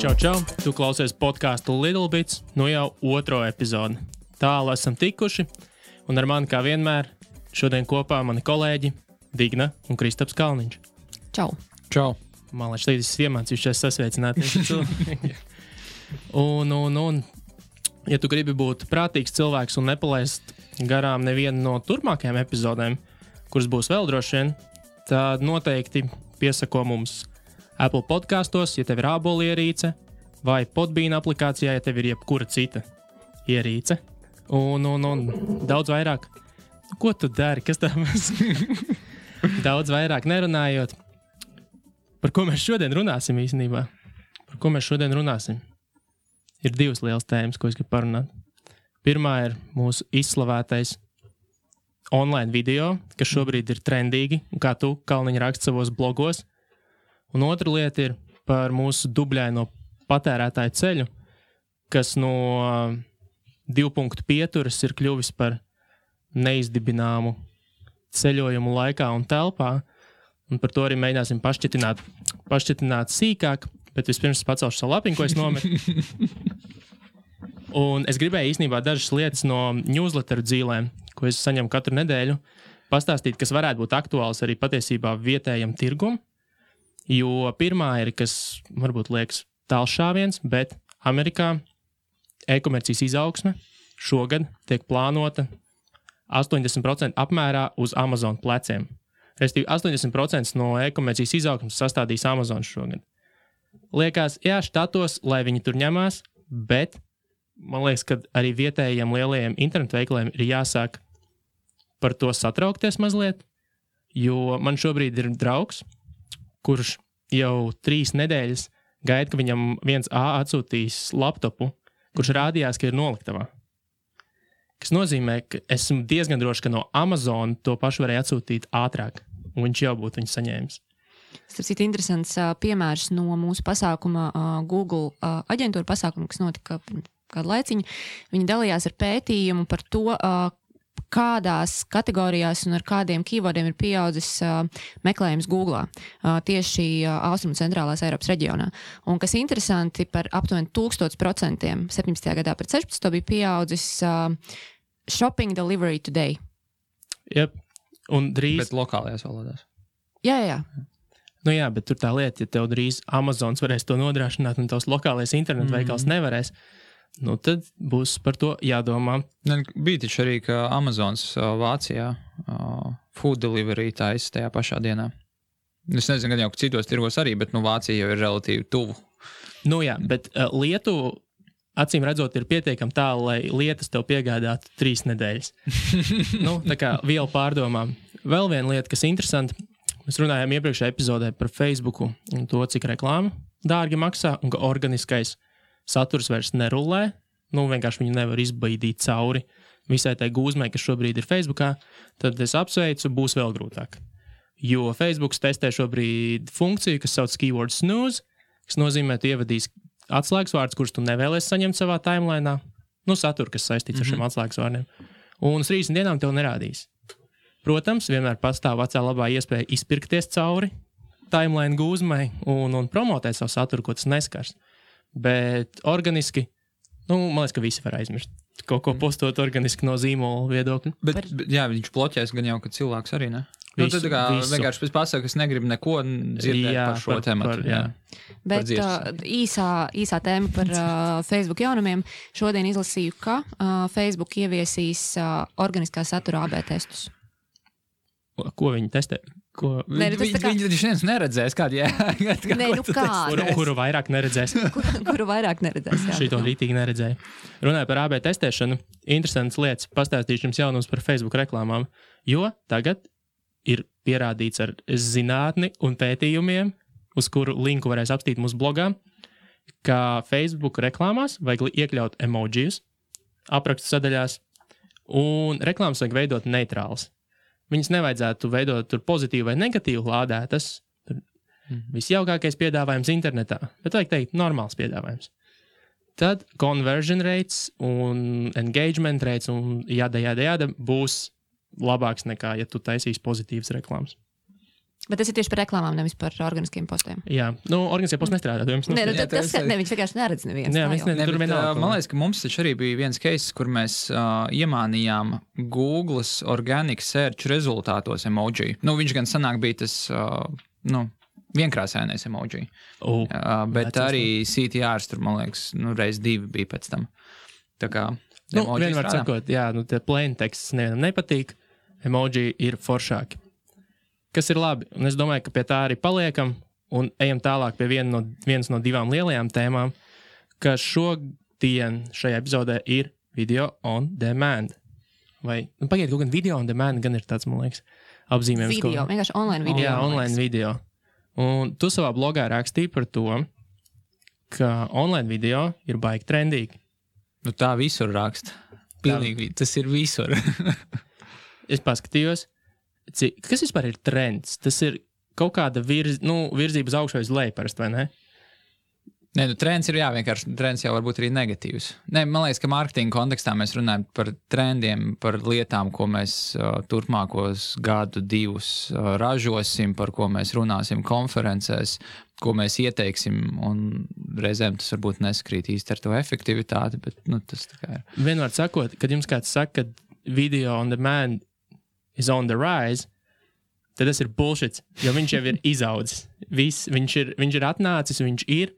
Čau! Tu klausies podcastu Little Bits, nu jau otro epizodi. Tālu esam tikuši, un ar mani kā vienmēr šodien kopā mani kolēģi Digna un Kristaps Kalniņš. Čau! Man liekas, līdz es iemācījušies sasveicināt. Un, ja tu gribi būt prātīgs cilvēks un nepalaist garām nevienu no turpmākajām epizodēm, kuras būs vēl droši vien, tad noteikti piesako mums Apple podkastos, ja tev ir ābolu ierīce, vai Podbean aplikācijā, ja tev ir jebkura cita ierīce. Un daudz vairāk. Ko tu dari? Kas tā mēs? Daudz vairāk nerunājot. Par ko mēs šodien runāsim īstenībā? Ir divas lielas tēmas, ko es gribu parunāt. Pirmā ir mūsu izslavētais online video, kas šobrīd ir trendīgi, kā tu, Kalniņa, raksti savos blogos. Un otra lieta ir par mūsu dubļaino patērētāju ceļu, kas no 2 punktu pieturas ir kļuvis par neizdibināmu ceļojumu laikā un telpā. Un par to arī mēģināsim pašķitināt sīkāk, bet vispirms pacelšu savu lapiņu, ko es nometu. Un es gribēju īstenībā dažas lietas no newsletteru dzīlēm, ko es saņemu katru nedēļu, pastāstīt, kas varētu būt aktuāls arī patiesībā vietējam tirgum. Jo pirmā ir, kas varbūt liekas tālšāviens, bet Amerikā e-komercijas izaugsme šogad tiek plānota 80% apmērā uz Amazon pleciem. Restīvi 80% no e-komercijas izaugsmes sastādīs Amazon šogad. Liekas, jā, štatos, lai viņi tur ņemās, bet man liekas, ka arī vietējiem lielajiem internetu veikaliem ir jāsāk par to satraukties mazliet, jo man šobrīd ir draugs, kurš jau 3 nedēļas gaida, ka viņam 1A atsūtīs laptopu, kurš rādījās, ka ir noliktavā. Kas nozīmē, ka esmu diezgan droši, ka no Amazon to pašu varēja atsūtīt ātrāk, un viņš jau būtu viņu saņēmis. Tas ir interesants piemērs no mūsu pasākuma Google aģentūra pasākuma, kas notika kādu laiciņu. Viņi dalījās ar pētījumu par to, kādās kategorijās un ar kādiem keywordiem ir pieaudzis meklējums Googlā tieši Austrumu centrālās Eiropas reģionā. Un kas interesanti, par aptuveni 1000% 17. gadā pret 16. bija pieaudzis shopping delivery today. Jep, un drīz... Bet lokālajās valodās. Jā. Nu jā, bet tur tā lieta, ja tev drīz Amazons varēs to nodrošināt un tavs lokālais internetu veikals nevarēs, nu tad būs par to jādomā. Bija taču arī, ka Amazons Vācijā food delivery taisa tajā pašā dienā. Es nezinu, gan jau, ka citos tirgos arī, bet Vācija jau ir relatīvi tuvu. Nu jā, bet Lietuva, acīm redzot, ir pietiekami tālu, lai lietas tev piegādātu 3 nedēļas. Tā kā vielu pārdomām. Vēl viena lieta, kas interesanti, mēs runājām iepriekšējā epizodē par Facebooku un to, cik reklāma dārgi maksā un ka organiskais saturs vairs nerulē, vienkārši viņu nevar izbaidīt cauri visai tai gūzmai, kas šobrīd ir Facebookā, tad es apsveicu, būs vēl grūtāk. Jo Facebooks testē šobrīd funkciju, kas sauc keyword snooze, kas nozīmē, tu ievadīs atslēgas vārdus, kurus tu nevēlies saņemt savā timelainā, satura, kas saistīts ar šiem atslēgas vārdiem, un uz 30 dienām tev nerādīs. Protams, vienmēr pastāv vecā labā iespēja izpirkties cauri timeline gūzmai un promotēt savu saturu, ko tas neskars. Bet organiski, man liekas, ka visi var aizmirst. Kaut ko postot organiski no zīmola viedokļa. Bet jā, viņš bloķēs gan jau, ka cilvēks arī, ne? Visu, tad kā vienkārši pēc pasaka, es negribu neko dzirdēt par šo tematu. Bet īsā tēma par Facebook jaunumiem. Šodien izlasīju, ka Facebook ieviesīs organiskā satura AB testus. Ko viņi testē? Viņi taču neredzēs, kuru vairāk neredzēs. Kuru vairāk neredzēs, jā. Šito rītīgi neredzēju. Runāju par AB testēšanu. Interesants lietas. Pastāstīšu jums jaunums par Facebook reklāmām. Jo tagad ir pierādīts ar zinātni un pētījumiem, uz kuru linku varēs apstīt mūsu blogā, ka Facebook reklāmās vajag iekļaut emojijus aprakstu sadaļās un reklāmas vajag veidot neitrāls. Viņas nevajadzētu veidot tur pozitīvu vai negatīvu lādētas. Visjaukākais piedāvājums internetā, bet vajag teikt normāls piedāvājums. Tad conversion rates un engagement rates un jāda būs labāks nekā, ja tu taisīsi pozitīvas reklāmas. Bet tas ir tieši par reklāmām, nevis par organiskiem postiem. Jā, organiskie posti nestrādā. Viņš vienkārši neredz neviens. Jā, tur vienalga. Man liekas, ka mums taču arī bija viens case, kur mēs iemānījām Google's organic search rezultātos emoji. Viņš gan sanāk bija tas, vienkrāsainais emoji. Bet arī CTRs tur, man liekas, reiz 2 bija pēc tam. Tā kā vienmēr sakot, tie plain teksts nevienam nepatīk, emoji ir foršāki. Kas ir labi, un es domāju, ka pie tā arī paliekam, un ejam tālāk pie vienas no 2 lielajām tēmām, ka šodien šajā epizodē ir video on demand. Vai, pagaid, kaut gan video on demand gan ir tāds, man liekas, apzīmējums. Video, vienkārši online video. Jā, online video. Un tu savā blogā rakstīji par to, ka online video ir baigi trendīgi. Tā visur raksta. Pilnīgi, tas ir visur. Es paskatījos, kas vispār ir trends? Tas ir kaut kāda virzība uz augšu vai uz leju parasti, vai ne? Nē, trends ir vienkārši trends jau varbūt arī negatīvs. Nē, man liekas, ka mārketinga kontekstā mēs runājam par trendiem, par lietām, ko mēs turpmākos 1-2 ražosim, par ko mēs runāsim konferencēs, ko mēs ieteiksim, un reizēm tas varbūt neskrīt īsti ar to efektivitāti, bet tas tā kā ir. Vienmēr sakot, kad jums kāds saka, ka video on demand is on the rise, tad tas ir bullshit, jo viņš jau ir izaudzis. Viņš ir atnācis, viņš ir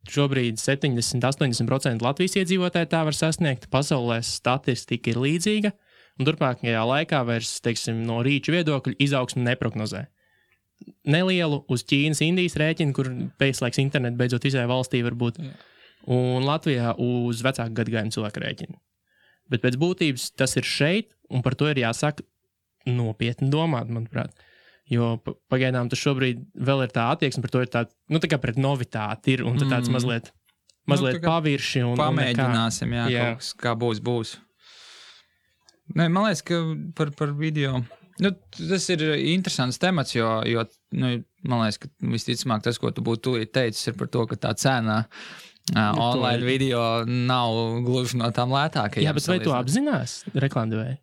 šobrīd 70-80% Latvijas iedzīvotāji tā var sasniegt, pasaulē statistika ir līdzīga, un turpmākajā laikā vairs, no rīču viedokļu izaugsmu neprognozē. Nelielu uz Ķīnas, Indijas rēķinu, kur pēclaiks internetu beidzot izēja valstī varbūt, un Latvijā uz vecāku gadagājumu cilvēku rēķinu. Bet pēc būtības tas ir šeit, un par to ir jāsāk nopietni domāt, manuprāt. Jo pagaidām tas šobrīd vēl ir tā attieksme, par to ir tā, tā kā pret novitāti ir, un tāds mazliet pavirši. Pamēģināsim, kaut kas, kā būs. Nē, man liekas, ka par video, tas ir interesants temats, jo man liekas, ka visticamāk tas, ko tu būtu tūlīt teicis, ir par to, ka tā cena online video nav gluži no tām lētākajām. Jā, bet vai tu apzinās reklāmdevēji?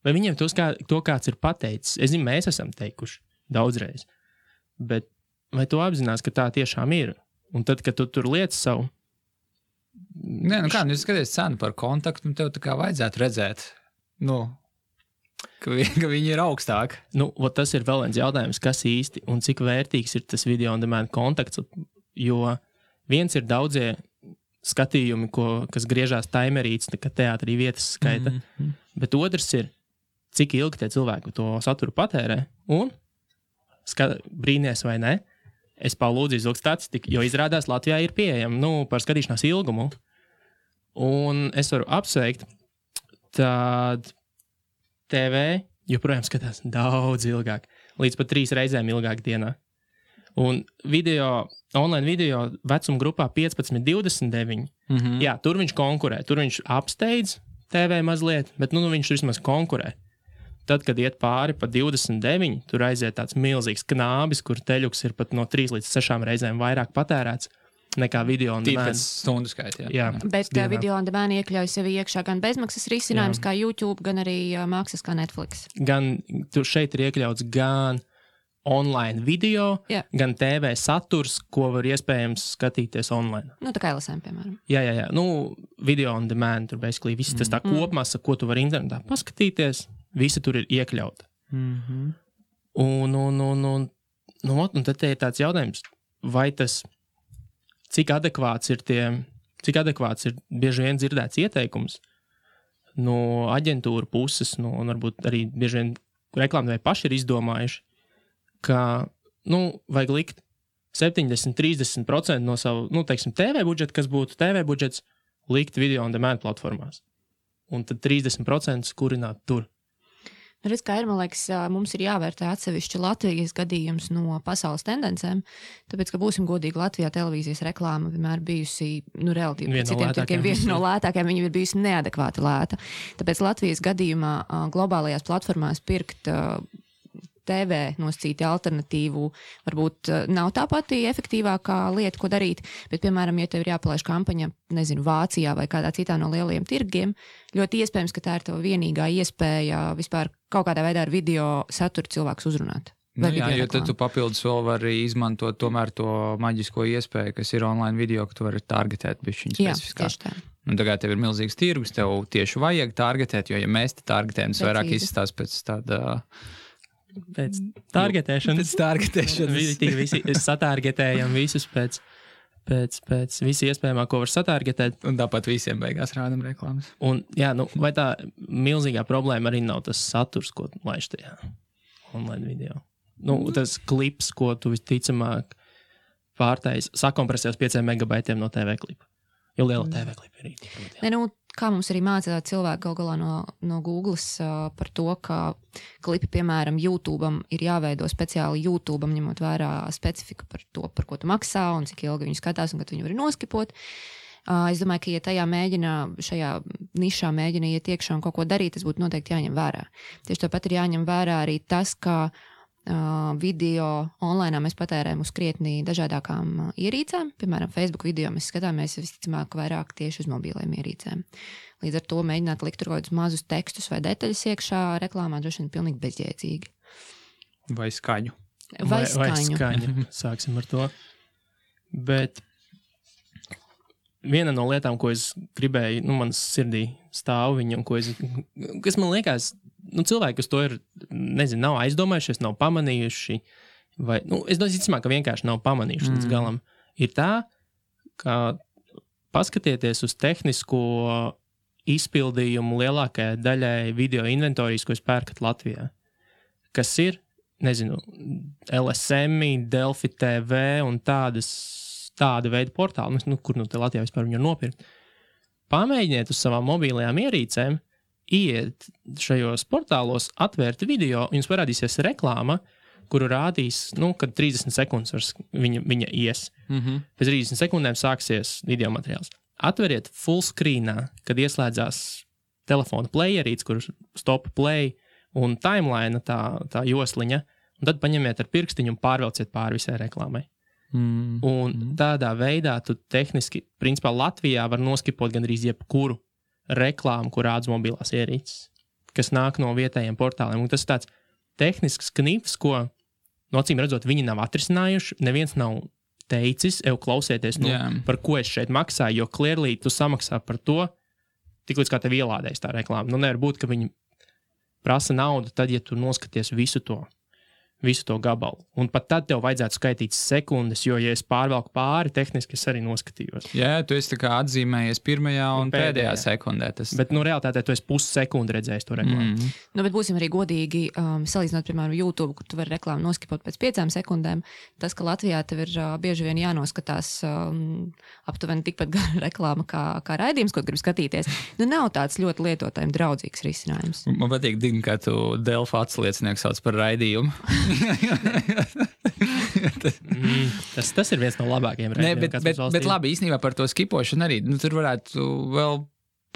Vai viņiem to kāds ir pateicis? Es zinu, mēs esam teikuši daudzreiz. Bet vai tu apzinās, ka tā tiešām ir? Un tad, kad tu tur liec savu... Nē, jūs skaties cenu par kontaktu, un tev tā kā vajadzētu redzēt, ka viņi ir augstāk. Tas ir vēl viens jautājums, kas īsti un cik vērtīgs ir tas video on demand kontakts, jo viens ir daudzie skatījumi, kas griežās taimerīts, tā kā teātrī vietas skaita, bet otrs ir, cik ilgi tie cilvēki to saturu patērē, un brīnies vai ne, es palūdzu izlūgt statistiku, jo izrādās Latvijā ir pieejama, par skatīšanās ilgumu, un es varu apsveikt, tad TV joprojām skatās daudz ilgāk, līdz pat 3 reizēm ilgāk dienā. Un online video vecuma grupā 15-29, jā, tur viņš konkurē, tur viņš apsteidz TV mazliet, bet viņš vismaz konkurē. Tad, kad iet pāri pa 29, tur aiziet tāds milzīgs knābis, kur teļuks ir pat no 3 līdz 6 reizēm vairāk patērēts nekā video on demand. Tīpēc stundu skaitā. Jā. Bet video on demand iekļauj sevi iekšā gan bezmaksas risinājums kā YouTube, gan arī maksas kā Netflix. Gan tur šeit ir iekļauts gan online video, gan TV saturs, ko var iespējams skatīties online. Tā kā LSM, piemēram. Jā. Video on demand, tur basically viss tas tā kopmasa, ko tu vari internetā paskatīties. Visi tur ir iekļauta. Un tad ir tāds jautājums, vai tas, cik adekvāts ir bieži vien dzirdēts ieteikums no aģentūra puses, un varbūt arī bieži vien reklāmdevēji paši ir izdomājuši, ka, vajag likt 70-30% no savu, TV budžeta, kas būtu TV budžets, likt video on demand platformās. Un tad 30% kurināt tur. Redz, kā ir, man liekas, mums ir jāvērtē atsevišķi Latvijas gadījums no pasaules tendencēm, tāpēc, ka būsim godīgi, Latvijā televīzijas reklāma vienmēr bijusi, relatīvi citiem tirkiem, viena no lētākajām, viņa ir bijusi neadekvāti lēta. Tāpēc Latvijas gadījumā globālajās platformās pirkt TV nosacīti alternatīvu varbūt nav tā pati efektīvākā lieta, ko darīt, bet, piemēram, ja tev ir jāpalaiž kampaņa, Vācijā vai kādā citā no lielajiem tirgiem, ļoti iespējams, ka tā ir tava vienīgā iespēja vispār kaut kādā veidā ar video saturu cilvēkus uzrunāt. Nu, jā, jo tad tu papildus vēl vari izmantot tomēr to maģisko iespēju, kas ir online video, ka tu vari targetēt bišķiņu specifiskāk. Jā, tieši tā. Un tagad tev ir milzīgs tirgus, tev tieši vajag targetēt, jo ja mēs te targetējam, tas vairāk izstās pēc tāda... Pēc targetēšanas. Pēc targetēšanas. Visi satargetējam visus pēc visi iespējamā, ko var satargetēt. Un tāpat visiem beigās rādam reklāmas. Un, jā, vai tā milzīgā problēma arī nav tas saturs, ko laiž tajā online video? Tas klips, ko tu visticamāk pārtais, sakompresēs 5 megabaitiem no TV klipa. Jo liela TV klipa ir īsti. Kā mums arī mācīja cilvēki gal galā no Googles par to, ka klipi, piemēram, YouTube'am ir jāveido speciāli YouTube'am, ņemot vērā specifiku par to, par ko tu maksā un cik ilgi viņu skatās un kad viņu var noskipot. Es domāju, ka, ja šajā nišā mēģina iet iekšā un kaut ko darīt, tas būtu noteikti jāņem vērā. Tieši tāpat ir jāņem vērā arī tas, ka video online mēs patērējam uz krietni dažādākām ierīcēm. Piemēram, Facebook video mēs skatāmies visticamāk vairāk tieši uz mobiliem ierīcēm. Līdz ar to mēģināt likt tur kaut kādus mazus tekstus vai detaļas iekšā reklāmā droši vien pilnīgi bezjēdzīgi. Vai skaņu. Vai skaņu. Sāksim ar to. Bet viena no lietām, ko es gribēju, manas sirdī stāv viņam, kas man liekas, cilvēki, kas to ir, nav aizdomājušies, nav pamanījuši, vai, es domāju, ka vienkārši nav pamanījuši līdz galam, ir tā, ka paskatieties uz tehnisko izpildījumu lielākajai daļai video inventorijas, ko jūs pērkat Latvijā, kas ir, LSM, Delfi TV un tāda veida portāli, kur te Latvijā vispār viņu nopirkt. Pamēģiniet uz savām mobilajām ierīcēm, iet šajos portālos, atvērt video, jums parādīsies reklāma, kuru rādīs, kad 30 sekundes viņa ies. Pēc 30 sekundēm sāksies video materiāls. Atveriet full screenā, kad ieslēdzās telefona playerīts, kur stop play un timeline tā josliņa, un tad paņemiet ar pirkstiņu un pārvelciet pāri visai reklāmai. Un tādā veidā tu tehniski, principā Latvijā var noskipot gandrīz jebkuru reklāmu, kur rādas mobilās ierīces, kas nāk no vietējiem portāliem. Un tas ir tāds tehnisks knifs, ko, acīm redzot, viņi nav atrisinājuši. Neviens nav teicis, klausieties, par ko es šeit maksāju, jo clearly tu samaksā par to, tik līdz kā tev ielādēs tā reklāma. Nevar būt, ka viņi prasa naudu tad, ja tu noskaties visu to gabalu. Un pat tad tev vajadzētu skaitīt sekundes, jo, ja es pārvelku pāri, tehniski es arī noskatījos. Jā, tu esi tā kā atzīmējies pirmajā un pēdējā sekundē. Bet, realitātē tu esi pussekundi redzējis to reklāmu. Bet būsim arī godīgi, salīdzinot, piemēram, YouTube, kur tu vari reklāmu noskipot pēc 5 sekundēm. Tas, ka Latvijā tev ir bieži vien jānoskatās aptuveni tikpat gara reklāma kā raidījums, ko gribi skatīties, nav tāds ļoti lietotājiem draudzīgs risinājums. Man patīk, kā tu Delfa atsliecinieks sauc par raidījumu. Tas ir viens no labākajiem raidījumiem. Bet labi, īstenībā par to skipošanu arī. Tur varētu vēl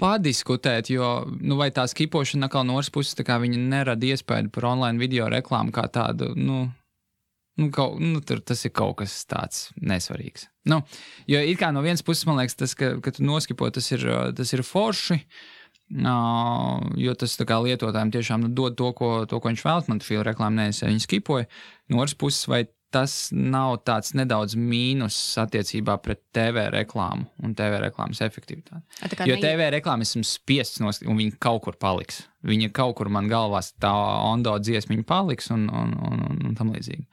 padiskutēt, jo vai tā skipošana atkal no otras puses, tā kā viņa nerada iespēju par online video reklāmu kā tādu, tas ir kaut kas tāds nesvarīgs. Jo it kā no vienas puses, man liekas, tas, ka tu noskipo, tas ir forši, jo tas tā kā lietotājiem tiešām dod to, ko viņš vēlas. Man fīla reklāma nevis, viņi skipoja. No otras puses, vai tas nav tāds nedaudz mīnus attiecībā pret TV reklāmu un TV reklāmas efektivitāti? Jo TV reklāma esmu spiests un viņa kaut kur paliks. Viņa kaut kur man galvās tā ondo dziesmiņa paliks un tam līdzīgi.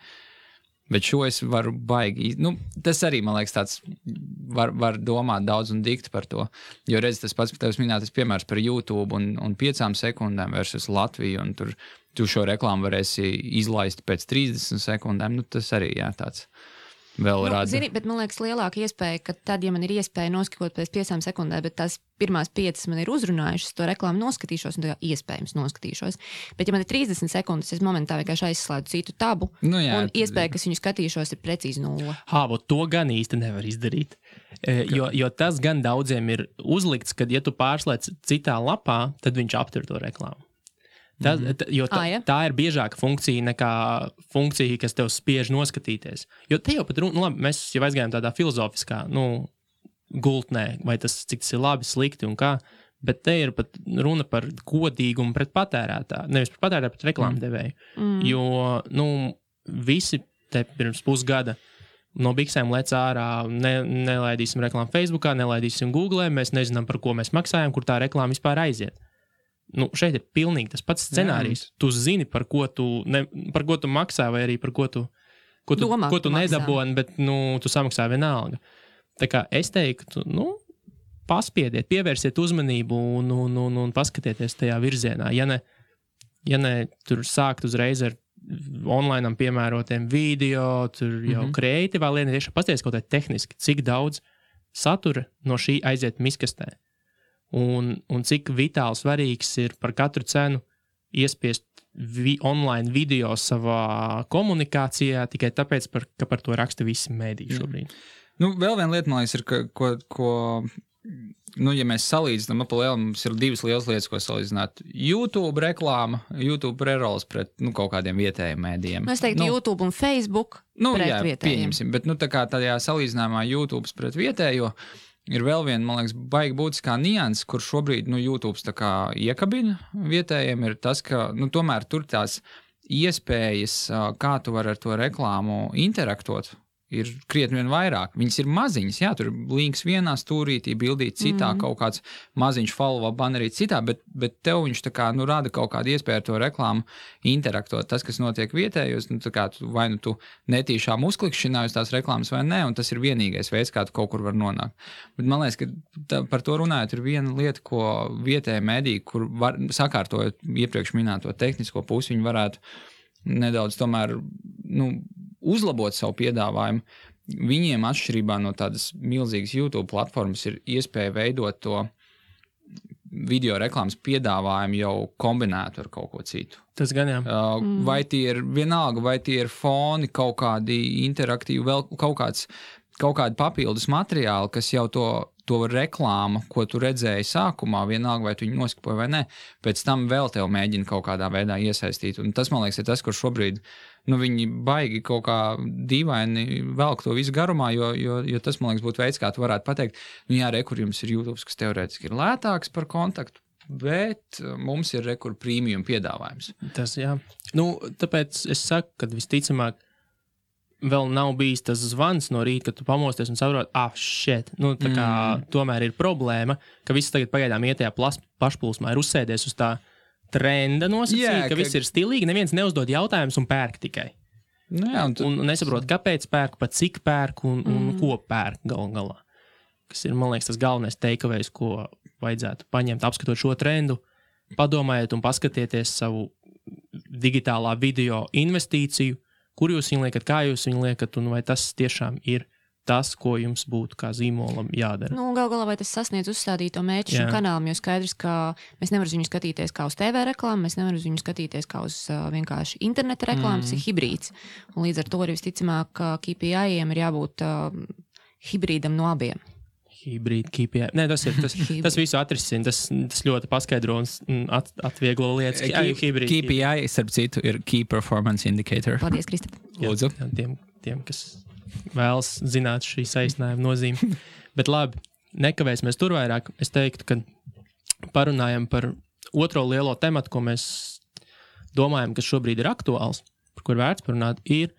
Bet šo es varu baigi. Tas arī, man liekas, tāds var domāt daudz un dikt par to. Jo redz, tas pats tevis minētais piemērs par YouTube un 5 sekundēm versus Latviju, un tur tu šo reklāmu varēsi izlaist pēc 30 sekundēm. Tas arī, tāds vēl rāda. Zini, bet man liekas lielāka iespēja, ka tad, ja man ir iespēja noskipot pēc 5 sekundēm, bet tās pirmās 5 man ir uzrunājušas, to reklāmu noskatīšos un tā iespējams noskatīšos. Bet ja man ir 30 sekundes, es momentā vienkārši aizslēdzu citu tabu, un iespēja, ka viņu skatīšos, ir precīzi 0. To gan īsti nevar izdarīt. Jo tas gan daudziem ir uzlikts, kad ja tu pārslēdz citā lapā, tad viņš aptur to reklāmu. Tā ir biežāka funkcija nekā funkcija, kas tev spiež noskatīties. Jo te jau pat mēs jau aizgājām tādā filozofiskā, gultnē, vai cik tas ir labi, slikti un kā, bet te ir pat runa par godīgumu pret patērētāju, nevis par patērētāju, bet reklāmu devēju. Jo, visi te pirms pusgada no biksēm lec ārā, nelaidīsim reklāmu Facebookā, nelaidīsim Googlē, mēs nezinām, par ko mēs maksājam, kur tā reklāma vispār aiziet. Nu, šeit ir pilnīgi tas pats scenārijs. Tu zini, par ko tu maksā, vai arī par ko tu nedaboni, bet tu samaksā vienalga. Tā kā es teiktu, paspiediet, pievērsiet uzmanību un paskatieties tajā virzienā. Ja ne tur sākt uzreiz ar online piemērotiem video, tur jau kreatīvā lieta, tieši pasties kaut kā tehniski, cik daudz satura no šī aiziet miskastē. Un cik vitāli svarīgs ir par katru cenu iespiest online video savā komunikācijā tikai tāpēc, ka par to raksta visi mēdī šobrīd. Vēl viena lieta, man liekas, ir, ko ja mēs salīdzinām, mums ir divas lielas lietas, ko salīdzināt. YouTube reklāma, YouTube prerols pret kaut kādiem vietējiem mēdījiem. Es teiktu, YouTube un Facebook pret vietējiem. Pieņemsim, bet tā kā tajā salīdzinājumā YouTube pret vietējo ir vēl viena, man liekas, baigi būtiskā nianses, kur šobrīd YouTube tā kā iekabina vietējiem, ir tas, ka tomēr tur tās iespējas, kā tu vari ar to reklāmu interaktot, ir krietni vien vairāk. Viņas ir maziņas, jā, tur links vienā stūrītī, bildīt citā, kaut kāds maziņš follow bannerīt citā, bet tev viņš tā kā, rada kaut kādu iespēju ar to reklāmu interaktot. Tas, kas notiek vietējos, tā kā vai tu netīšām uzklikšķināji uz tās reklāmas vai ne, un tas ir vienīgais veids, kā tu kaut kur var nonākt. Bet man liekas, ka par to runājot ir viena lieta, ko vietējie mediji, kur sakārtojot iepriekš minēto tehnisko pusi, viņi varētu nedaudz tomēr, uzlabot savu piedāvājumu. Viņiem atšķirībā no tādas milzīgas YouTube platformas ir iespēja veidot to video reklāmas piedāvājumu jau kombinētu ar kaut ko citu. Tas gan jā. Vai tie ir vienalga, vai tie ir foni, kaut kādi interaktīvi, vēl kaut kādi papildus materiāli, kas jau to reklāmu, ko tu redzēji sākumā, vienalga, vai tu viņu noskipoji vai ne, pēc tam vēl tev mēģina kaut kādā veidā iesaistīt. Un tas, man liekas, ir tas, kur šobrīd viņi baigi kaut kā dīvaini velk to visu garumā, jo tas, man liekas, būtu veids, kā tu varētu pateikt, kur jums ir YouTube, kas teorētiski ir lētāks par kontaktu, bet mums ir rekur premium piedāvājums. Tas, jā. Tāpēc es saku, ka visticamāk vēl nav bijis tas zvans no rīta, kad tu pamosties un saproti, tā kā tomēr ir problēma, ka viss tagad pagaidām iet tajā pašplūsmā, ir uzsēdies uz tā trenda nosacīja, ka viss ir stilīgi, neviens neuzdod jautājumus un pērk tikai. Un nesaprot, kāpēc pērk, pat cik pērk un ko pērk galā. Kas ir, man liekas, tas galvenais takeaways, ko vajadzētu paņemt, apskatot šo trendu, padomājiet un paskatieties savu digitālā video investīciju, kur jūs viņu liekat, kā jūs viņu liekat, un vai tas tiešām ir tas, ko jums būtu kā zīmolam jādara. Gal galā vai tas sasniedz uzstādīto mērķi šim kanālam, jo skaidrs, ka mēs nevaram viņu skatīties kā uz TV reklāmu, mēs nevaram viņu skatīties kā uz vienkārši interneta reklāmu, tas ir hibrīds. Un līdz ar to arī visticamāk, ka KPI-iem ir jābūt hibrīdam no abiem. Hibrīd, KPI. Nē, tas visu atrisina, tas ļoti paskaidro un atvieglo lietas. KPI, starp citu, ir Key Performance Indicator. Paldies, Kristap. Lūdzu. Tiem, kas vēlas zināt šī saīsinājuma nozīme. Bet labi, nekavēsimies tur vairāk. Es teiktu, ka parunājam par otro lielo tematu, ko mēs domājam, kas šobrīd ir aktuāls, par kur vērts parunāt, ir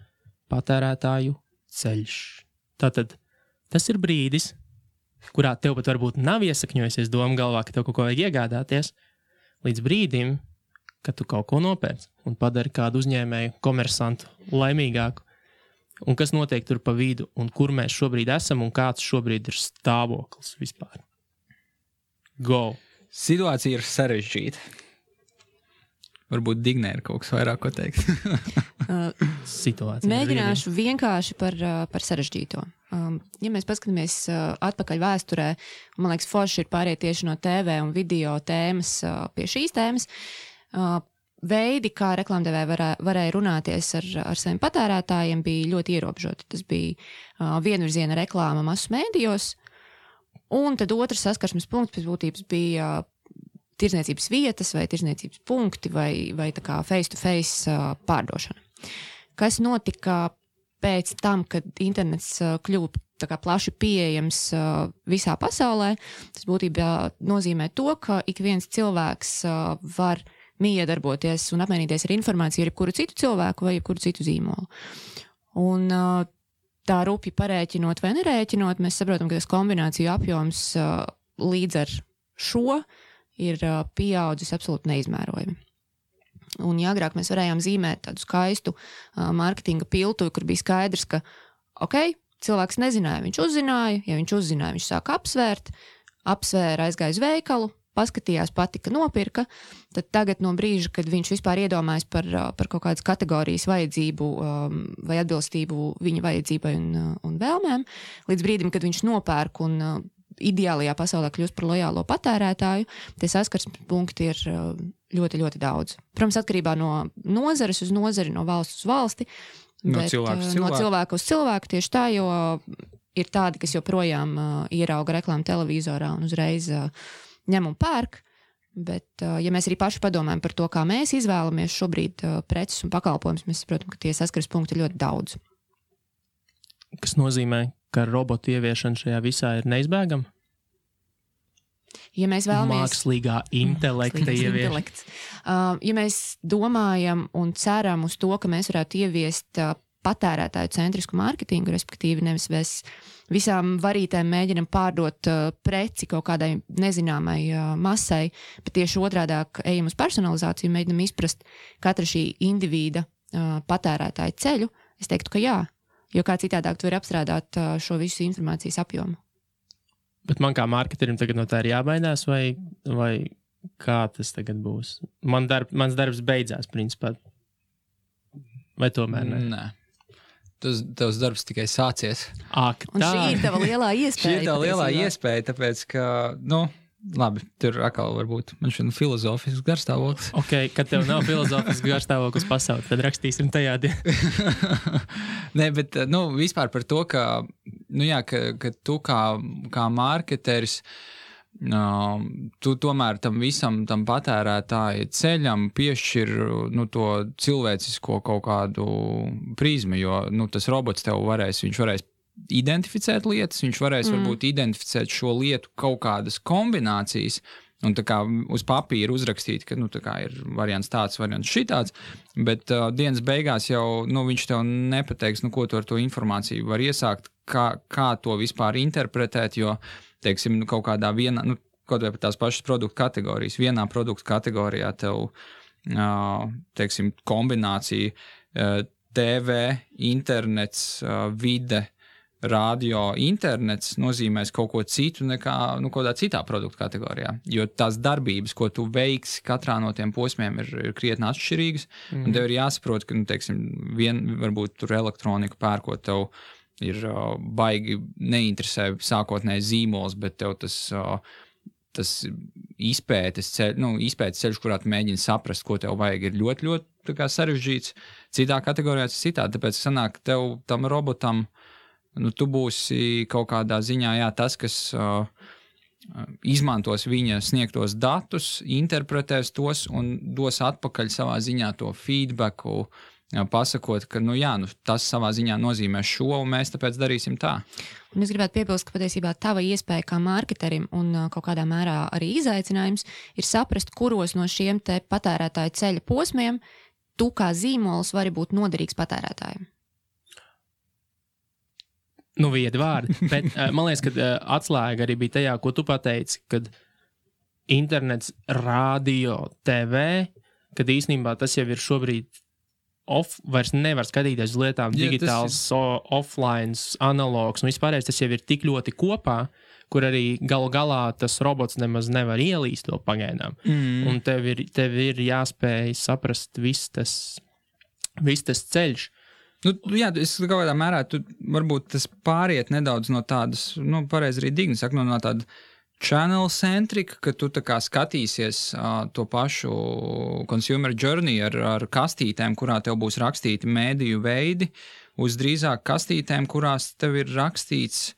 patērētāju ceļš. Tātad tas ir brīdis, kurā tev pat varbūt nav iesakņojusies doma galvā, ka tev kaut ko vajag iegādāties, līdz brīdim, kad tu kaut ko nopērc un padari kādu uzņēmēju, komersantu laimīgāku. Un kas notiek tur pa vidu, un kur mēs šobrīd esam, un kāds šobrīd ir stāvoklis vispār. Go! Situācija ir sarežģīta. Varbūt Dignē ir kaut kas vairāk, ko teikt. Situācija. Mēģināšu vienkārši par sarežģīto. Ja mēs paskatāmies atpakaļ vēsturē, man liekas, forši ir pāriet tieši no TV un video tēmas pie šīs tēmas, veidi, kā reklāmdevēji varēja runāties ar saviem patērētājiem, bija ļoti ierobežoti. Tas bija vienvirziena reklāma masu mēdījos, un tad otrs saskarsmes punkts pēc būtības bija tirdzniecības vietas vai tirdzniecības punkti vai tā kā face-to-face pārdošana. Kas notika pēc tam, kad internets kļuva tā kā plaši pieejams visā pasaulē? Tas būtībā nozīmē to, ka ik viens cilvēks var miedarboties un apmainīties ar informāciju ar jebkuru citu cilvēku vai jebkuru citu zīmolu. Un tā rupji parēķinot vai nerēķinot, mēs saprotam, ka tas kombināciju apjoms līdz ar šo ir pieaudzis absolūti neizmērojami. Un ja agrāk mēs varējām zīmēt tādu skaistu mārketinga piltuvi, kur bija skaidrs, ka cilvēks nezināja, viņš uzzināja, ja viņš uzzināja, viņš sāka apsvēra, aizgāja uz veikalu, paskatījās, patika, nopirka, tad tagad no brīža, kad viņš vispār iedomājas par kaut kādas kategorijas vajadzību vai atbilstību viņa vajadzībai un vēlmēm, līdz brīdim, kad viņš nopērk un ideālajā pasaulē kļūst par lojālo patērētāju, tie saskarsmes punkti ir ļoti, ļoti daudz. Protams, atkarībā no nozares uz nozari, no valsts uz valsti, no cilvēku uz cilvēku tieši tā, jo ir tādi, kas joprojām ierauga reklāmu televizorā un uzreiz ņem un pērk, bet ja mēs arī paši padomājam par to, kā mēs izvēlamies šobrīd preces un pakalpojumus, mēs saprotam, ka tie saskaras punkti ir ļoti daudz. Kas nozīmē, ka robotu ieviešana šajā visā ir neizbēgama? Ja mēs vēlamies... Mākslīgā intelekta ieviešana. Ja mēs domājam un ceram uz to, ka mēs varētu ieviest patērētāju centrisku mārketingu, respektīvi nevis mēs visām varītēm mēģinam pārdot preci kaut kādai nezināmai masai, bet tieši otrādāk ejam uz personalizāciju, mēģinam izprast katra šī individa patērētāju ceļu, es teiktu, ka jā, jo kā citādāk tu vari apstrādāt šo visu informācijas apjomu. Bet man kā marketerim tagad no tā ir jābaidās, vai kā tas tagad būs? Mans darbs beidzās, principā. Vai tomēr ne? Nē. Tavs darbs tikai sācies. Ak, tā. Un šī ir tava lielā iespēja. Šī ir tā lielā iespēja, tāpēc, ka, labi, tur atkal varbūt man šodien filozofisks garstāvoklis. Kad tev nav filozofisks garstāvoklis pasauli, tad rakstīsim tajā dienā. Nē, bet, vispār par to, ka tu kā marketeris, tu tomēr tam visam, tam patērētāja ceļam piešķir to cilvēcisko kaut kādu prizmu, jo tas robots tev viņš varēs identificēt lietas, viņš varēs varbūt identificēt šo lietu kaut kādas kombinācijas un tā kā uz papīra uzrakstīt, ka tā kā ir variants tāds, variants šitāds, bet dienas beigās jau viņš tev nepateiks, ko tu ar to informāciju var iesākt, kā to vispār interpretēt, jo teiksim, kaut kādā vienā, kaut vai par tās pašas produktu kategorijas, vienā produktu kategorijā tev, teiksim, kombinācija TV, internets, vide, radio, internets nozīmēs kaut ko citu nekā, kaut kādā citā produktu kategorijā, jo tās darbības, ko tu veiksi katrā no tiem posmiem ir krietni atšķirīgas, un tev ir jāsaprot, ka, teiksim, varbūt tur elektroniku pērkot tev ir baigi neinteresē sākotnēji zīmols, bet tev tas izpētes ceļš, kurā tu mēģini saprast, ko tev vajag, ir ļoti, ļoti tā kā sarežģīts. Citā kategorijā tas citā, tāpēc sanāk tev tam robotam, tu būsi kaut kādā ziņā, tas, kas izmantos viņa sniegtos datus, interpretēs tos un dos atpakaļ savā ziņā to feedbacku, pasakot, ka, tas savā ziņā nozīmē šo, un mēs tāpēc darīsim tā. Un es gribētu piebilst, ka patiesībā tava iespēja kā marketerim un kaut kādā mērā arī izaicinājums ir saprast, kuros no šiem te patērētāju ceļa posmiem tu kā zīmols vari būt noderīgs patērētājiem. Viedi vārdi, bet man liekas, ka atslēga arī bija tajā, ko tu pateici, kad internets, radio, TV, kad īstenībā tas jau ir šobrīd vairs nevar skatīties uz lietām digitāls, offline, analogs, un vispārējais tas jau ir tik ļoti kopā, kur arī galu galā tas robots nemaz nevar ielīst vēl pagaidām. Un tev ir jāspēj saprast viss tas ceļš. Es kaut kādā mērā, varbūt tas pāriet nedaudz no tādas, pareizi arī Digni saka, no tāda channel-centrika, ka tu tā kā skatīsies to pašu consumer journey ar kastītēm, kurā tev būs rakstīti mēdīju veidi, uz drīzāk kastītēm, kurās tev ir rakstīts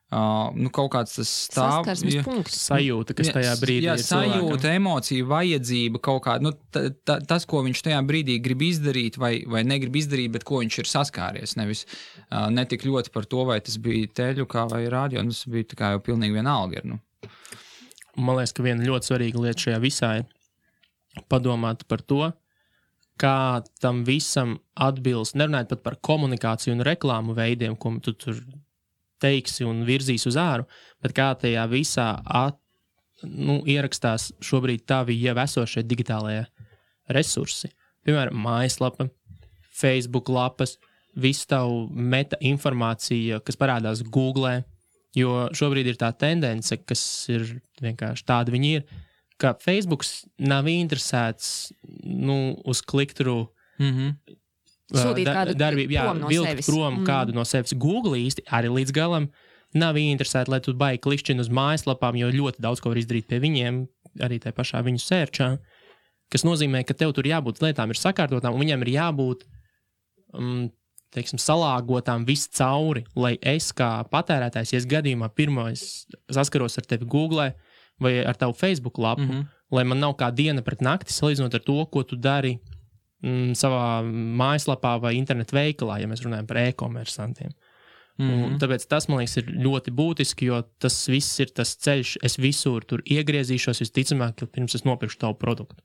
kaut kāds tas saskarsmes punkts. Sajūta, kas tajā brīdī ir cilvēkam. Sajūta, emocija, vajadzība, kaut kāda, tas, ko viņš tajā brīdī grib izdarīt vai negrib izdarīt, bet ko viņš ir saskāries, nevis netik ļoti par to, vai tas bija teļukā vai radio, tas bija tā kā jau pilnīgi vienalga. Man liekas, ka viena ļoti svarīga lieta šajā visā ir, padomāt par to, kā tam visam atbilst, nerunājot pat par komunikāciju un reklāmu veidiem, ko tu tur teiksi un virzīs uz āru, bet kā tajā visā ierakstās šobrīd tavi jau esošie digitālajie resursi. Piemēram, mājaslapa, Facebook lapas, visu tavu meta informācija, kas parādās Google, jo šobrīd ir tā tendence, kas ir vienkārši tāda viņi ir, ka Facebooks nav interesēts uz klikturu sūtīt kādu prom no vilkt sevis. Prom kādu no sevis. Google īsti arī līdz galam nav interesēti, lai tu baigi klikšķini uz mājaslapām, jo ļoti daudz ko var izdarīt pie viņiem, arī tajā pašā viņu sērčā, kas nozīmē, ka tev tur jābūt lietām ir sakārtotām, un viņiem ir jābūt salāgotām viss cauri, lai es kā patērētājs, ja es gadījumā pirmais saskaros ar tevi Google vai ar tavu Facebook lapu, lai man nav kā diena pret nakti salīdzinot ar to, ko tu dari savā mājaslapā vai internetu veikalā, ja mēs runājam par e-komersantiem. Un tāpēc tas, man liekas, ir ļoti būtiski, jo tas viss ir tas ceļš, es visur tur iegriezīšos, visticamāk, pirms es nopirkšu tavu produktu.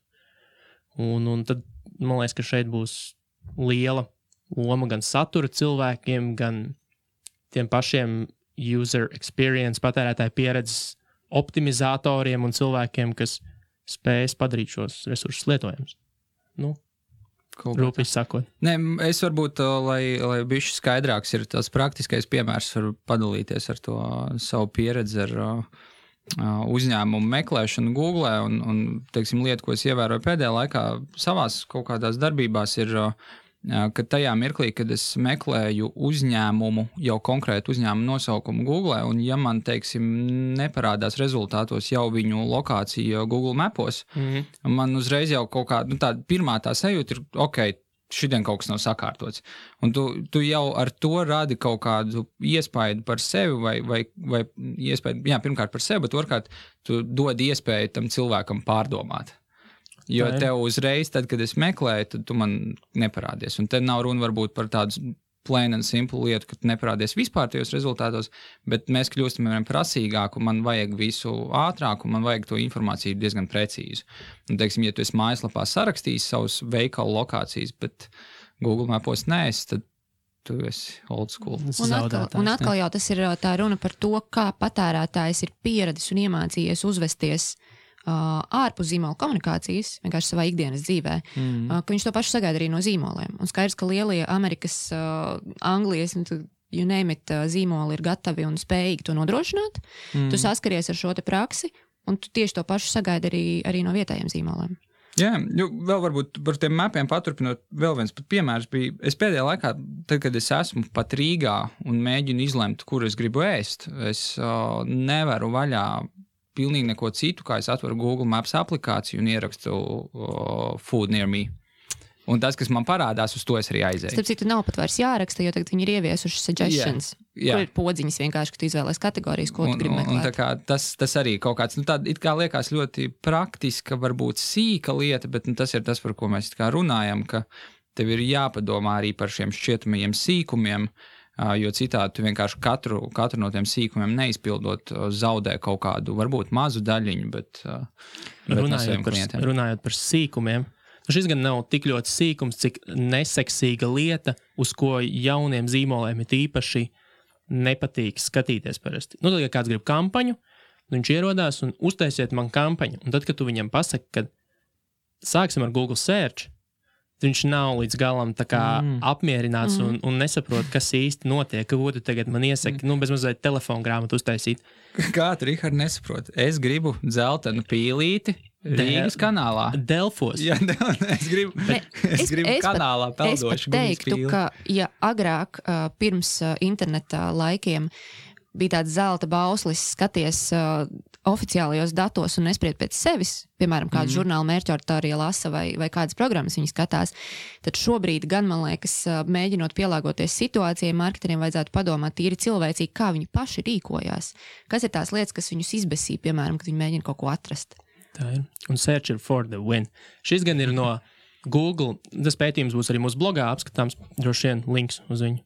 Un tad, man liekas, ka šeit būs liela loma gan satura cilvēkiem, gan tiem pašiem user experience, patērētāju pieredzes optimizatoriem un cilvēkiem, kas spējas padarīt šos resursus lietojams. Rūpīgi sakot. Nē, es varbūt, lai bišķi skaidrāks ir tas praktiskais piemērs, varu padalīties ar to savu pieredzi ar uzņēmumu meklēšanu Google un teiksim, lietu, ko es ievēroju pēdējā laikā savās kaut kādās darbībās ir, ka tajā mirklī, kad es meklēju uzņēmumu, jau konkrētu uzņēmumu nosaukumu Google, un ja man, teiksim, neparādās rezultātos jau viņu lokācija Google Mapos, man uzreiz jau kaut kā, tā pirmā tā sajūta ir, ok, šodien kaut kas nav sakārtots. Un tu jau ar to radi kaut kādu iespaidu par sevi vai iespaidu, pirmkārt par sevi, bet otrkārt tu dod iespēju tam cilvēkam pārdomāt. Jo tev uzreiz, tad, kad es meklēju, tad tu man neparādies. Un te nav runa varbūt par tādu plain and simple lietu, ka tu neparādies vispār tajos rezultātos, bet mēs kļūstam prasīgāk, un man vajag visu ātrāk, un man vajag to informāciju diezgan precīzi. Un, teiksim, ja tu esi mājaslapā sarakstījis savus veikalu lokācijas, bet Google Mapos neesi, tad tu esi old school. Un atkal jau tas ir tā runa par to, kā patērētājs ir pieradis un iemācījies uzvesties ārpus zīmola komunikācijas, vienkārši savā ikdienas dzīvē, ka viņš to pašu sagaida arī no zīmoliem. Un skaidrs, ka lielie Amerikas, Anglijas, you name it, zīmoli ir gatavi un spējīgi to nodrošināt. Tu saskaries ar šo te praksi, un tu tieši to pašu sagaida arī no vietējiem zīmoliem. Jā, vēl varbūt par tiem mapiem paturpinot, vēl viens pat piemērs bija, es pēdējā laikā, tad, kad es esmu pat Rīgā un mēģinu izlemt, kur es gribu ēst, es nevaru vaļā pilnīgi neko citu, kā es atveru Google Maps aplikāciju un ierakstu food near me. Un tas, kas man parādās, uz to es arī aizēju. Starp citu, nav pat vairs jāraksta, jo tagad viņi ir ieviesuši suggestions, kur ir podziņas vienkārši, ka tu izvēlēs kategorijas, ko tu gribi meklēt. Un tā kā tas arī kaut kāds, tāda it kā liekas ļoti praktiska, varbūt sīka lieta, bet tas ir tas, par ko mēs it kā runājam, ka tev ir jāpadomā arī par šiem šķietamajiem sīkumiem, jo citādi tu vienkārši katru no tiem sīkumiem neizpildot zaudē kaut kādu, varbūt mazu daļiņu, bet runājot par sīkumiem, šis gan nav tik ļoti sīkums, cik neseksīga lieta, uz ko jauniem zīmoliem ir īpaši nepatīk skatīties parasti. Tad, ja kāds grib kampaņu, viņš ierodās un uztaisiet man kampaņu, un tad, kad tu viņam pasaki, ka sāksim ar Google Search, viņš nav līdz galam tā kā apmierināts un nesaprot, kas īsti notiek, ko tu tagad man iesaki, bez mazliet telefonu grāmatu uztaisīt. Kā tu, Rihard, nesaprot? Es gribu dzeltenu pīlīti Rīgas kanālā. Delfos. Jā, es gribu kanālā peldošu. Es pat teiktu, ka ja agrāk pirms interneta laikiem bija tāds zelta bauslis skaties oficiālajos datos un nespried pēc sevis, piemēram, kādu žurnālu mērķauditorija lasa vai kādas programmas viņi skatās, tad šobrīd gan, man liekas, mēģinot pielāgoties situācijai, marketeriem vajadzētu padomāt tīri cilvēcīgi, kā viņi paši rīkojās. Kas ir tās lietas, kas viņus izbesī, piemēram, kad viņi mēģina kaut ko atrast? Tā ir. Un search for the win. Šis gan ir no Google, tas pētījums būs arī mūsu blogā apskatāms, droši vien links uz viņu.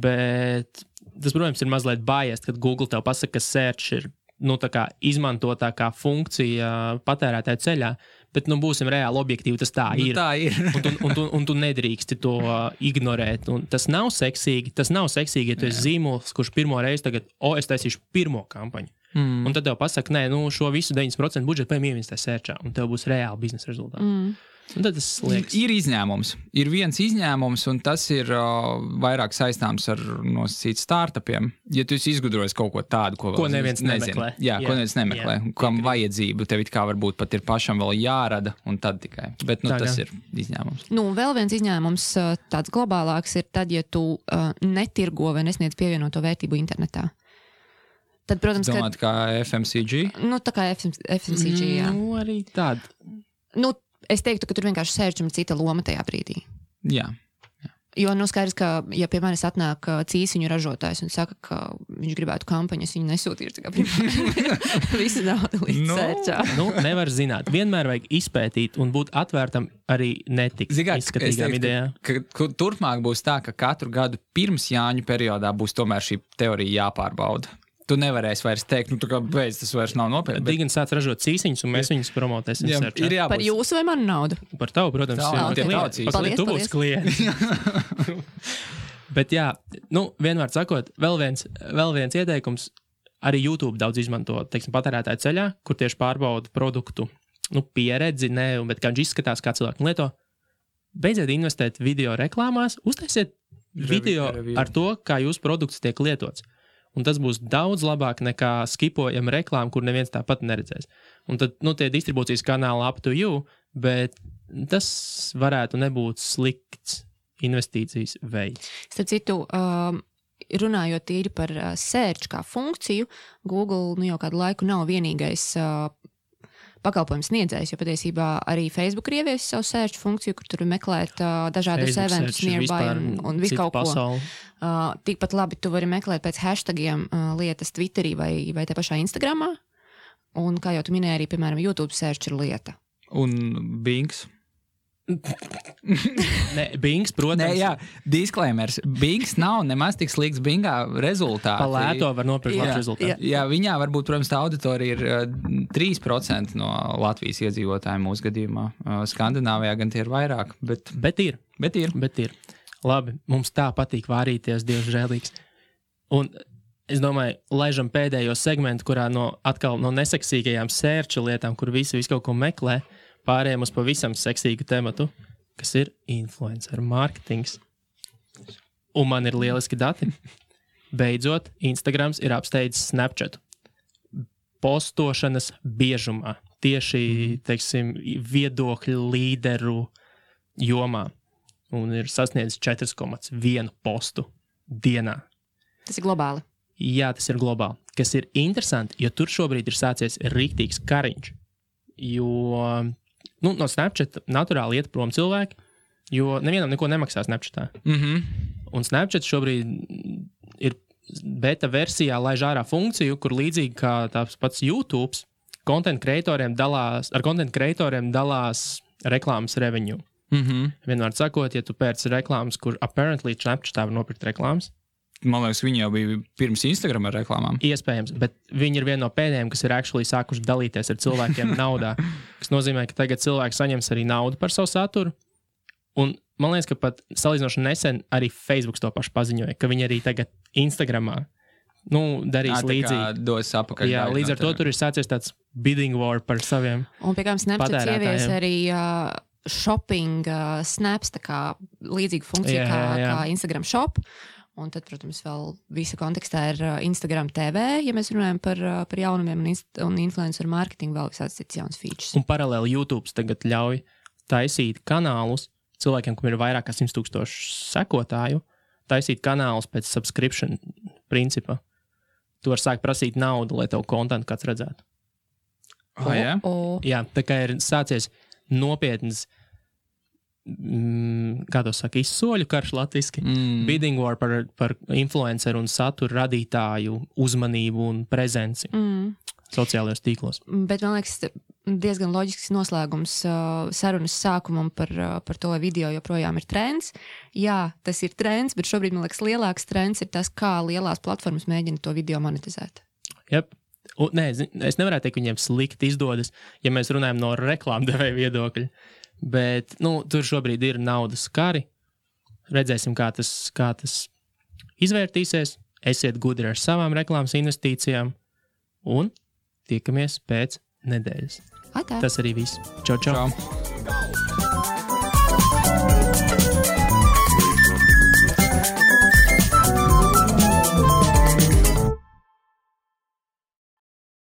Bet tas, protams, ir mazliet biased, kad Google tev pasaka, ka search ir tā kā izmantotākā funkcija patērētāju ceļā, Bet, būsim reāli objektīvi, tas tā ir. Tā ir. un tu nedrīksti to ignorēt. Un tas nav seksīgi, ja tu esi zīmols, kurš pirmo reizi tagad, es taisīšu pirmo kampaņu. Un tad tev pasaka, nē, šo visu 90% budžetu ieinvestē sērčā, un tev būs reāli biznesa rezultāti. Un tad tas liekas. Ir izņēmums. Ir viens izņēmums, un tas ir vairāk saistāms ar nosacīt startupiem. Ja tu esi izgudrojis kaut ko tādu, ko neviens nemeklē. Jā, ko neviens nemeklē. Kam vajadzību tev it kā varbūt pat ir pašam vēl jārada, un tad tikai. Bet tas ir izņēmums. Vēl viens izņēmums, tāds globālāks, ir tad, ja tu netirgo vai nesniedz pievienoto vērtību internetā. Tad, protams, domāt, kā FMCG? Tā kā FMCG, jā. Arī tāda. Es teiktu, ka tur vienkārši sērčam cita loma tajā brīdī. Jā. Jo, skaidrs, ka, ja pie manis atnāk cīsiņu ražotājs un saka, ka viņš gribētu kampaņu, es viņu nesūtīšu, visu naudu līdz sērčā. Nevar zināt. Vienmēr vajag izpētīt un būt atvērtam arī netik izskatīgām idejām. Ka turpmāk būs tā, ka katru gadu pirms Jāņu periodā būs tomēr šī teorija jāpārbauda. Tu nevarēsi vairs teikt, tā kā beidz, tas vairs nav nopietni. Digin sāc ražot cīsiņus, un mēs viņus promotēsim sērčā. Par jūsu vai manu naudu? Par tavu, protams. Tu būsi klients. Bet jā, vienmēr sakot, vēl viens ieteikums, arī YouTube daudz izmanto, patērētāju ceļā, kur tieši pārbauda produktu, pieredzi, bet kā viņš izskatās, kā cilvēki lieto. Beidziet investēt video reklāmās, uztaisiet video ar to, kā jūsu produkts tiek lietots. Un tas būs daudz labāk nekā skipojama reklāma, kur neviens tāpat neredzēs. Un tad, tie distribūcijas kanāli up to you, bet tas varētu nebūt slikts investīcijas veids. Starp citu, runājot tīri par search kā funkciju, Google jau kādu laiku nav vienīgais pakalpojums sniedzējs, jo patiesībā arī Facebook ir ieviesis savu search funkciju, kur tur meklēt dažādus eventus nearby un visu kaut ko. Tikpat labi tu vari meklēt pēc hashtagiem lietas Twitterī vai te pašā Instagramā. Un kā jau tu minēji, arī, piemēram, YouTube search ir lieta. Un Bings? Bings, protams. Jā, disclaimers. Bings nav nemaz tik slikts Bingā rezultāti. Pa lēto var nopirkt labs rezultāti. Jā, viņā varbūt, protams, tā auditorija ir 3% no Latvijas iedzīvotājiem mūsu gadījumā. Skandināvijā gan tie ir vairāk, bet ir. Labi, mums tā patīk vārīties, Dievs žēlīgs. Un es domāju, laižam pēdējo segmentu, kurā atkal no neseksīgajām sērča lietām, kur visi kaut ko meklē, pārējiem uz pavisam seksīgu tematu, kas ir influencer mārketings. Un man ir lieliski dati. Beidzot, Instagrams ir apsteidzis Snapchatu. Postošanas biežumā. Tieši, viedokļu līderu jomā. Un ir sasniedzis 4,1 postu dienā. Tas ir globāli. Jā, tas ir globāli. Kas ir interesanti, jo tur šobrīd ir sācies riktīgs kariņš. Jo no Snapchat naturāli iet prom cilvēki, jo nevienam neko nemaksā Snapchatā. Un Snapchat šobrīd ir beta versijā laiž ārā funkciju, kur līdzīgi kā tāds pats YouTube, content creatoriem dalās reklāmas revenue. Vienmēr sakot, ja tu pērci reklāmas, kur apparently Snapchatā var nopirkt reklāmas. Man liekas, viņi jau bija pirms Instagram ar reklāmām. Iespējams, bet viņi ir viena no pēdējiem, kas ir actually sākuši dalīties ar cilvēkiem naudā. Kas nozīmē, ka tagad cilvēki saņems arī naudu par savu saturu. Un man liekas, ka pat salīdzinoši nesen arī Facebook to pašu paziņoja, ka viņi arī tagad Instagramā darīs līdzīgi. Dos apakaļ. Jā, līdz ar to tur ir sācies tāds bidding war par saviem patērētājiem. Un pie kā Snapchat ievies arī shopping snaps, tā kā līdzīga funkcija kā Instagram shop. Un tad, protams, vēl visa kontekstā ir Instagram TV, ja mēs runājam par jaunumiem un influencer marketingu, vēl visāds cits jauns features. Un paralēli YouTube tagad ļauj taisīt kanālus cilvēkiem, kam ir vairāk kā 100,000 sekotāju, taisīt kanālus pēc subscription principa. Tu vari sākt prasīt naudu, lai tev kontentu kāds redzētu. Jā, tā kā ir sācies nopietnas kā to saka, izsoļu karš latviski, bidding war par influenceru un satura radītāju uzmanību un prezenci sociālajos tīklos. Bet man liekas, diezgan loģisks noslēgums sarunas sākumam par to, vai video joprojām ir trends. Jā, tas ir trends, bet šobrīd, man liekas, lielāks trends ir tas, kā lielās platformas mēģina to video monetizēt. Jep. Nē, es nevarētu teikt, ka viņiem slikti izdodas, ja mēs runājam no reklāmdevēja viedokļa. Bet tur šobrīd ir naudas kari. Redzēsim, kā tas izvērtīsies. Esiet gudri ar savām reklāmas investīcijām. Un tiekamies pēc nedēļas. Atā. Tas arī viss. Čau, čau! Čau.